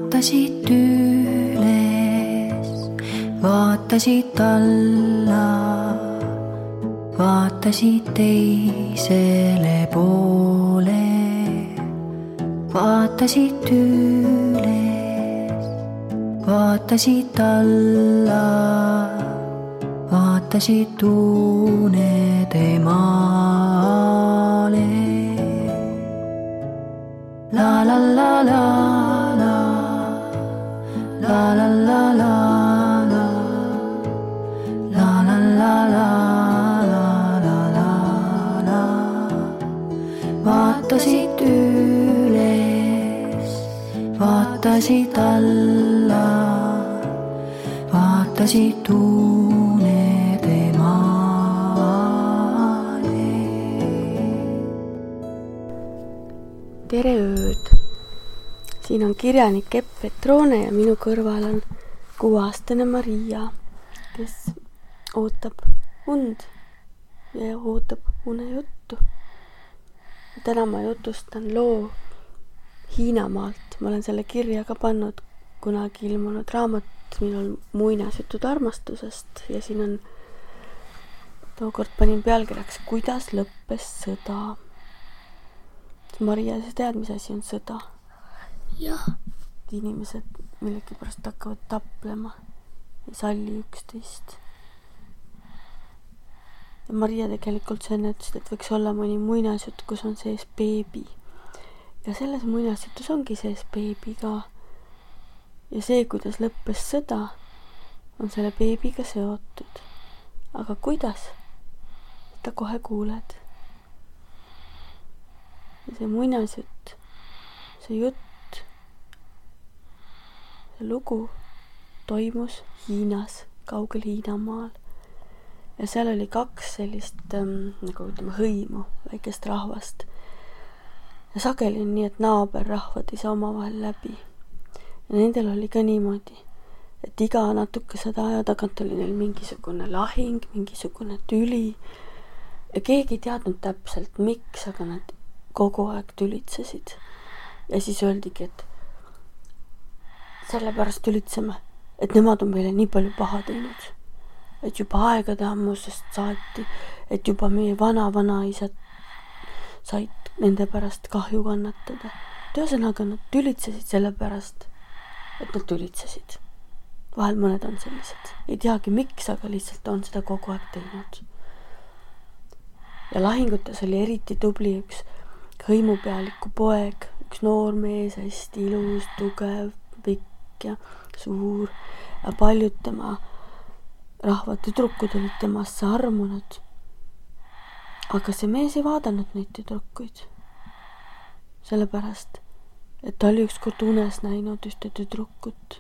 vaatasid üles, vaatasid alla, vaatasid teisele poole, vaatasid üles, vaatasid alla, vaatasid unede maale. La la la la la, la la la la la, la la la la la la la la. Vaatasid üles, vaatasid alla, vaatasid unede maale. Tere ööd! Siin on kirjanik Epp Petrone ja minu kõrval on 6-aastane Maria, kes ootab und ja ootab unejuttu. Täna ma jutustan loo Hiinamaalt. Ma olen selle kirja ka pannud kunagi ilmunud raamat minul muinasjutud armastusest ja siin on tookord panin pealkirjaks Kuidas lõppes sõda. Maria, sa tead, mis asi on sõda? Jah. Inimesed millegipärast hakkavad taplema, ei salli üksteist. Ja Maria tegelikult sa enne ütlesid, et võiks olla mõni muinasjutt, kus on sees beebi. Ja selles muinasjutus ongi sees beebi ka. Ja see, kuidas lõppes sõda, on selle beebiga seotud. Aga kuidas? Ta kohe kuuled. Ja see muinasjutt, see jutt, see lugu toimus Hiinas, kaugel Hiinamaal. Ja seal oli 2 sellist, nagu ütleme, hõimu, väikest rahvast. Ja sageli on nii, et naaberrahvad ei saa omavahel läbi. Ja nendel oli ka niimoodi, et iga natukese aja tagant oli neil mingisugune lahing, mingisugune tüli. Ja keegi ei teadnud täpselt, miks, aga nad kogu aeg tülitsesid. Ja siis öeldigi, et sellepärast tülitseme, et nemad on meile nii palju paha teinud. Et juba aegade ammusest saati, et juba meie vana-vanaisad said nende pärast kahju kannatada. Ühesõnaga nad tülitsesid sellepärast, et nad tülitsesid. Vahel mõned on sellised. Ei teagi miks, aga lihtsalt on seda kogu aeg teinud. Ja lahingutes oli eriti tubli üks hõimupealiku poeg, üks noor mees, hästi ilus, tugev, pikk ja suur. Ja paljud tema rahva tüdrukud olid temasse armunud. Aga see mees ei vaadanud neid tüdrukuid. Sellepärast, et ta oli ükskord unes näinud ühte tüdrukut,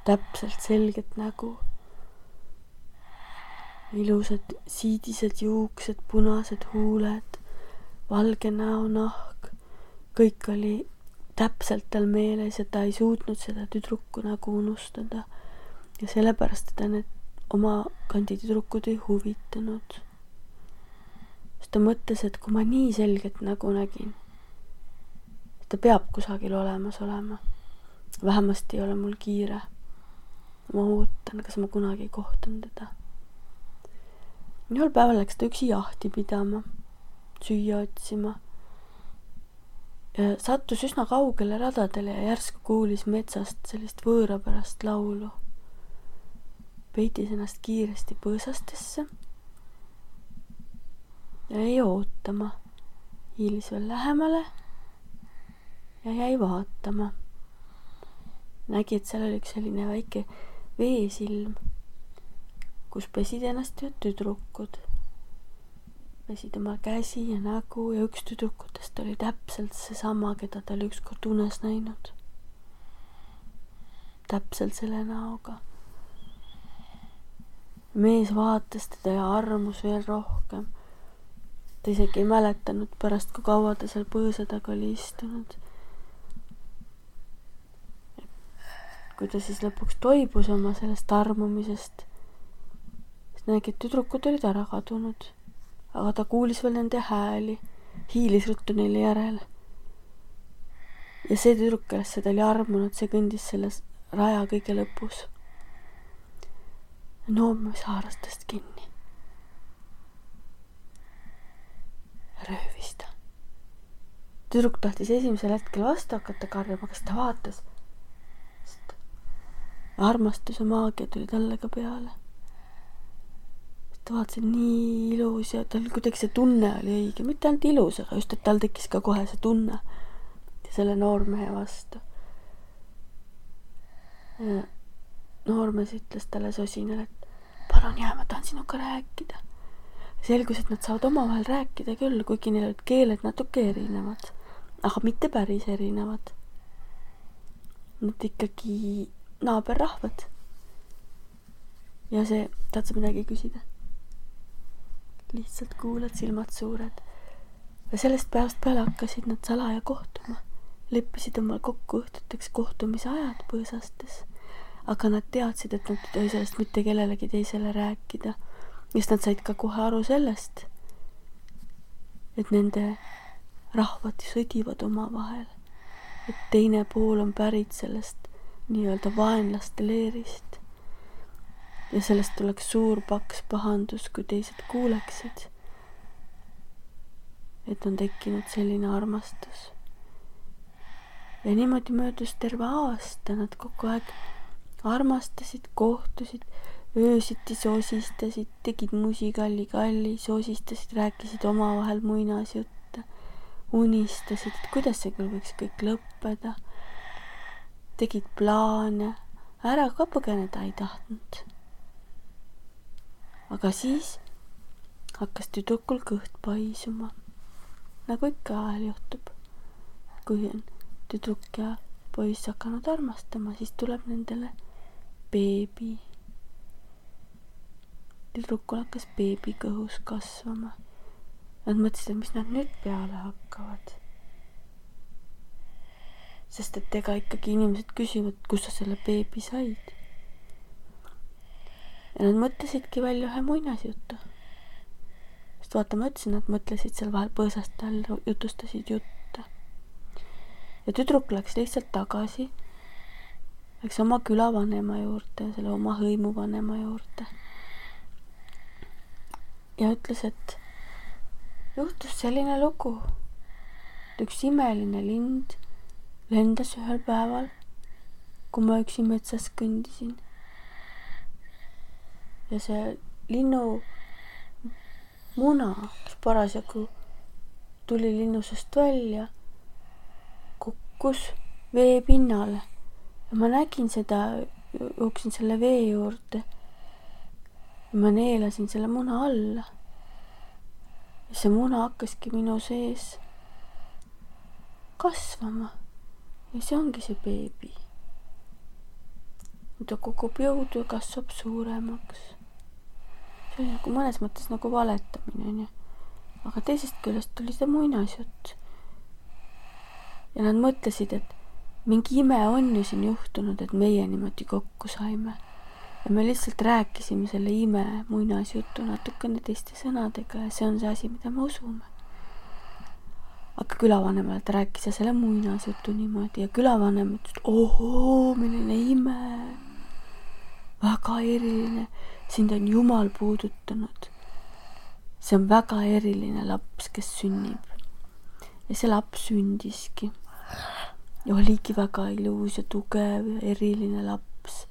täpselt selget nägu. Ilusad siidised juuksed, punased huuled, valge näonahk. Kõik oli täpselt tal meeles ja ta ei suutnud seda tüdruku nägu unustada. Ja sellepärast ta need oma kandi tüdrukud ei huvitanud. Sest ta mõtles, et kui ma nii selget nägu nägin, ta peab kusagil olemas olema. Vähemasti ei ole mul kiire. Ma ootan, kas ma kunagi kohtan teda. Ühel päeval läks ta üksi jahti pidama, süüa otsima. Ja sattus üsna kaugele radadele ja järsku kuulis metsast sellist võõrapärast laulu. Peitis ennast kiiresti põõsastesse ja jäi ootama. Hiilis veel lähemale ja jäi vaatama. Nägi, et seal oli üks selline väike veesilm, kus pesid ennast ühed tüdrukud. Pesid oma käsi ja nägu ja üks tüdrukutest oli täpselt seesama, keda ta oli ükskord unes näinud. Täpselt selle näoga. Mees vaatas teda ja armus veel rohkem. Ta isegi ei mäletanud pärast, kui kaua ta seal põõsa taga oli istunud. Kui ta siis lõpuks toibus oma sellest armumisest, siis nägi, et tüdrukud olid ära kadunud. Aga ta kuulis veel nende hääli, hiilis ruttu neile järele. ja see tüdruk, kellest ta oli armunud, see kõndis selles raja kõige lõpus. noormees haaras tast kinni. Röövis ta. Tüdruk tahtis esimesel hetkel vastu hakata karjuma, kas ta vaatas, sest armastuse maagia tuli talle ka peale. Ta vaatas, et nii ilus ja tal kuidagi see tunne oli õige, mitte ainult ilus, aga just, et tal tekkis ka kohe see tunne selle noormehe vastu. Noormees ütles talle sosinal, et palun jää, ma tahan sinuga rääkida. Selgus, et nad saavad omavahel rääkida küll, kuigi neil olid keeled natuke erinevad, aga mitte päris erinevad. Nad ikkagi naaberrahvad. Ja see, tahad sa midagi küsida? Lihtsalt kuulad, silmad suured. Ja sellest päevast peale hakkasid nad salaja kohtuma. Leppisid omal kokku õhtuteks kohtumise ajad põõsastes. Aga nad teadsid, et nad ei tohi sellest mitte kellelegi teisele rääkida. Just nad said ka kohe aru sellest, et nende rahvad sõdivad omavahel. Et teine pool on pärit sellest nii-öelda vaenlaste leerist. Ja sellest tuleks suur paks pahandus, kui teised kuuleksid, et on tekkinud selline armastus. Ja niimoodi möödus terve aasta, nad kogu aeg armastasid, kohtusid, öösiti sosistasid, tegid musikalli, sosistasid, rääkisid omavahel muinasjutte, unistasid, et kuidas see küll võiks kõik lõppeda, tegid plaane, ära ka põgeneda ei tahtnud. Aga siis hakkas tüdrukul kõht paisuma, nagu ikka ajal juhtub. Kui on tüdruk ja poiss hakanud armastama, siis tuleb nendele beebi. Tüdrukul hakkas beebi kõhus kasvama. Nad mõtlesid, et mis nad nüüd peale hakkavad. Sest et ega ikkagi inimesed küsivad, kus sa selle beebi said. Ja nad mõtlesidki välja ühe muinasjutu. Sest vaata, ma ütlesin, nad mõtlesid seal vahel põõsast all, jutustasid jutte. Ja tüdruk läks lihtsalt tagasi, läks oma külavanema juurde, selle oma hõimuvanema juurde. Ja ütles, et juhtus selline lugu. Üks imeline lind lendas ühel päeval, kui ma üksi metsas kõndisin. Ja see linnu muna, kes parasjagu tuli linnusest välja, kukkus vee pinnale. Ja ma nägin seda, jooksin selle vee juurde. Ja ma neelasin selle muna alla. Ja see muna hakkaski minu sees kasvama. Ja see ongi see beebi. Ta kogub jõudu ja kasvab suuremaks. See oli nagu mõnes mõttes nagu valetamine. Aga teisest küljest tuli see muinasjutt. Ja nad mõtlesid, et mingi ime on ju siin juhtunud, et meie niimoodi kokku saime. Ja me lihtsalt rääkisime selle ime muinasjutu natukene teiste sõnadega ja see on see asi, mida me usume. Aga külavanemale ta rääkis ja selle muinasjutu niimoodi ja külavanem ütles, et ohoo, milline ime. Väga eriline. Sind on Jumal puudutanud. See on väga eriline laps, kes sünnib. Ja see laps sündiski. Ja oligi väga ilus ja tugev ja eriline laps.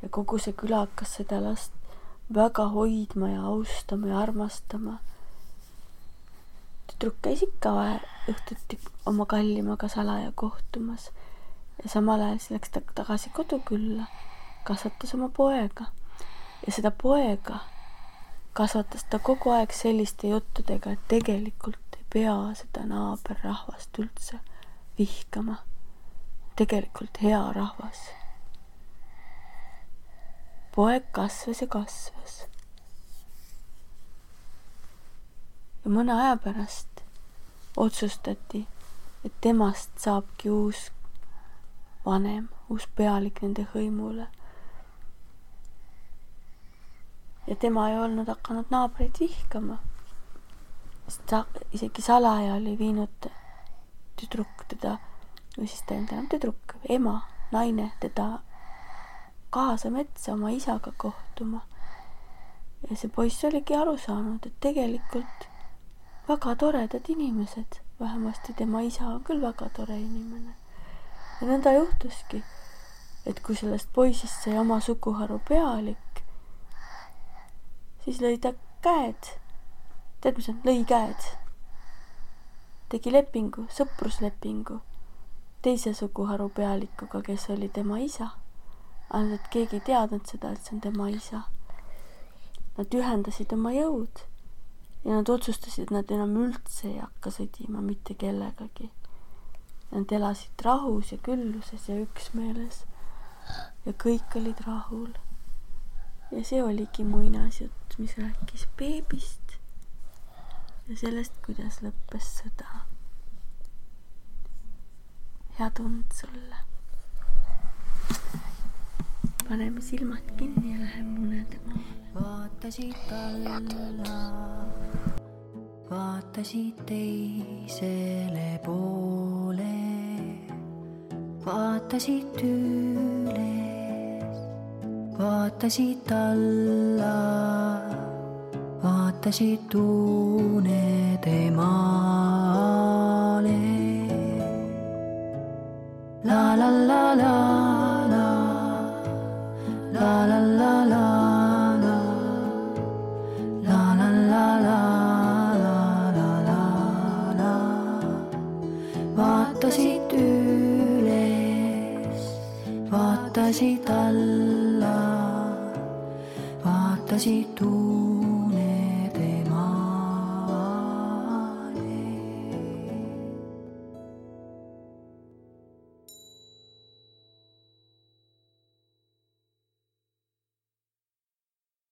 Ja kogu see küla hakkas seda last väga hoidma ja austama ja armastama. Tüdruk käis ikka õhtuti oma kallimaga salaja kohtumas. Ja samal ajal läks ta tagasi kodukülla, kasvatas oma poega. Ja seda poega kasvatas ta kogu aeg selliste juttudega, et tegelikult ei pea seda naaberrahvast üldse vihkama. Tegelikult hea rahvas. Poeg kasvas ja kasvas. Ja mõne aja pärast otsustati, et temast saabki uus vanem, uus pealik nende hõimule. Ja tema ei olnud hakanud naabreid vihkama. Sest isegi salaja oli viinud tüdruk teda, või siis ta ei olnud enam tüdruk, ema, naine teda kaasa metsa oma isaga kohtuma. Ja see poiss oligi aru saanud, et tegelikult väga toredad inimesed, vähemasti tema isa on küll väga tore inimene. Ja nõnda juhtuski, et kui sellest poisist sai oma suguharu pealik, siis lõi ta käed. Tead, mis on? Lõi käed. Tegi lepingu, sõpruslepingu teise suguharu pealikuga, kes oli tema isa. Ainult, et keegi ei teadnud seda, et see on tema isa. Nad ühendasid oma jõud ja nad otsustasid, et nad enam üldse ei hakka sõdima mitte kellegagi. Nad elasid rahus ja külluses ja üksmeeles ja kõik olid rahul. Ja see oligi muinasjutt, mis rääkis beebist ja sellest, kuidas lõppes sõda. Head und sulle. Paneme silmad kinni ja läheme unede maale. Vaatasid alla, vaatasid teisele poole, vaatasid üles, vaatasid alla, vaatasid unede maale. La la la la la, la la la la. Vaatasid üles, vaatasid alla, vaatasid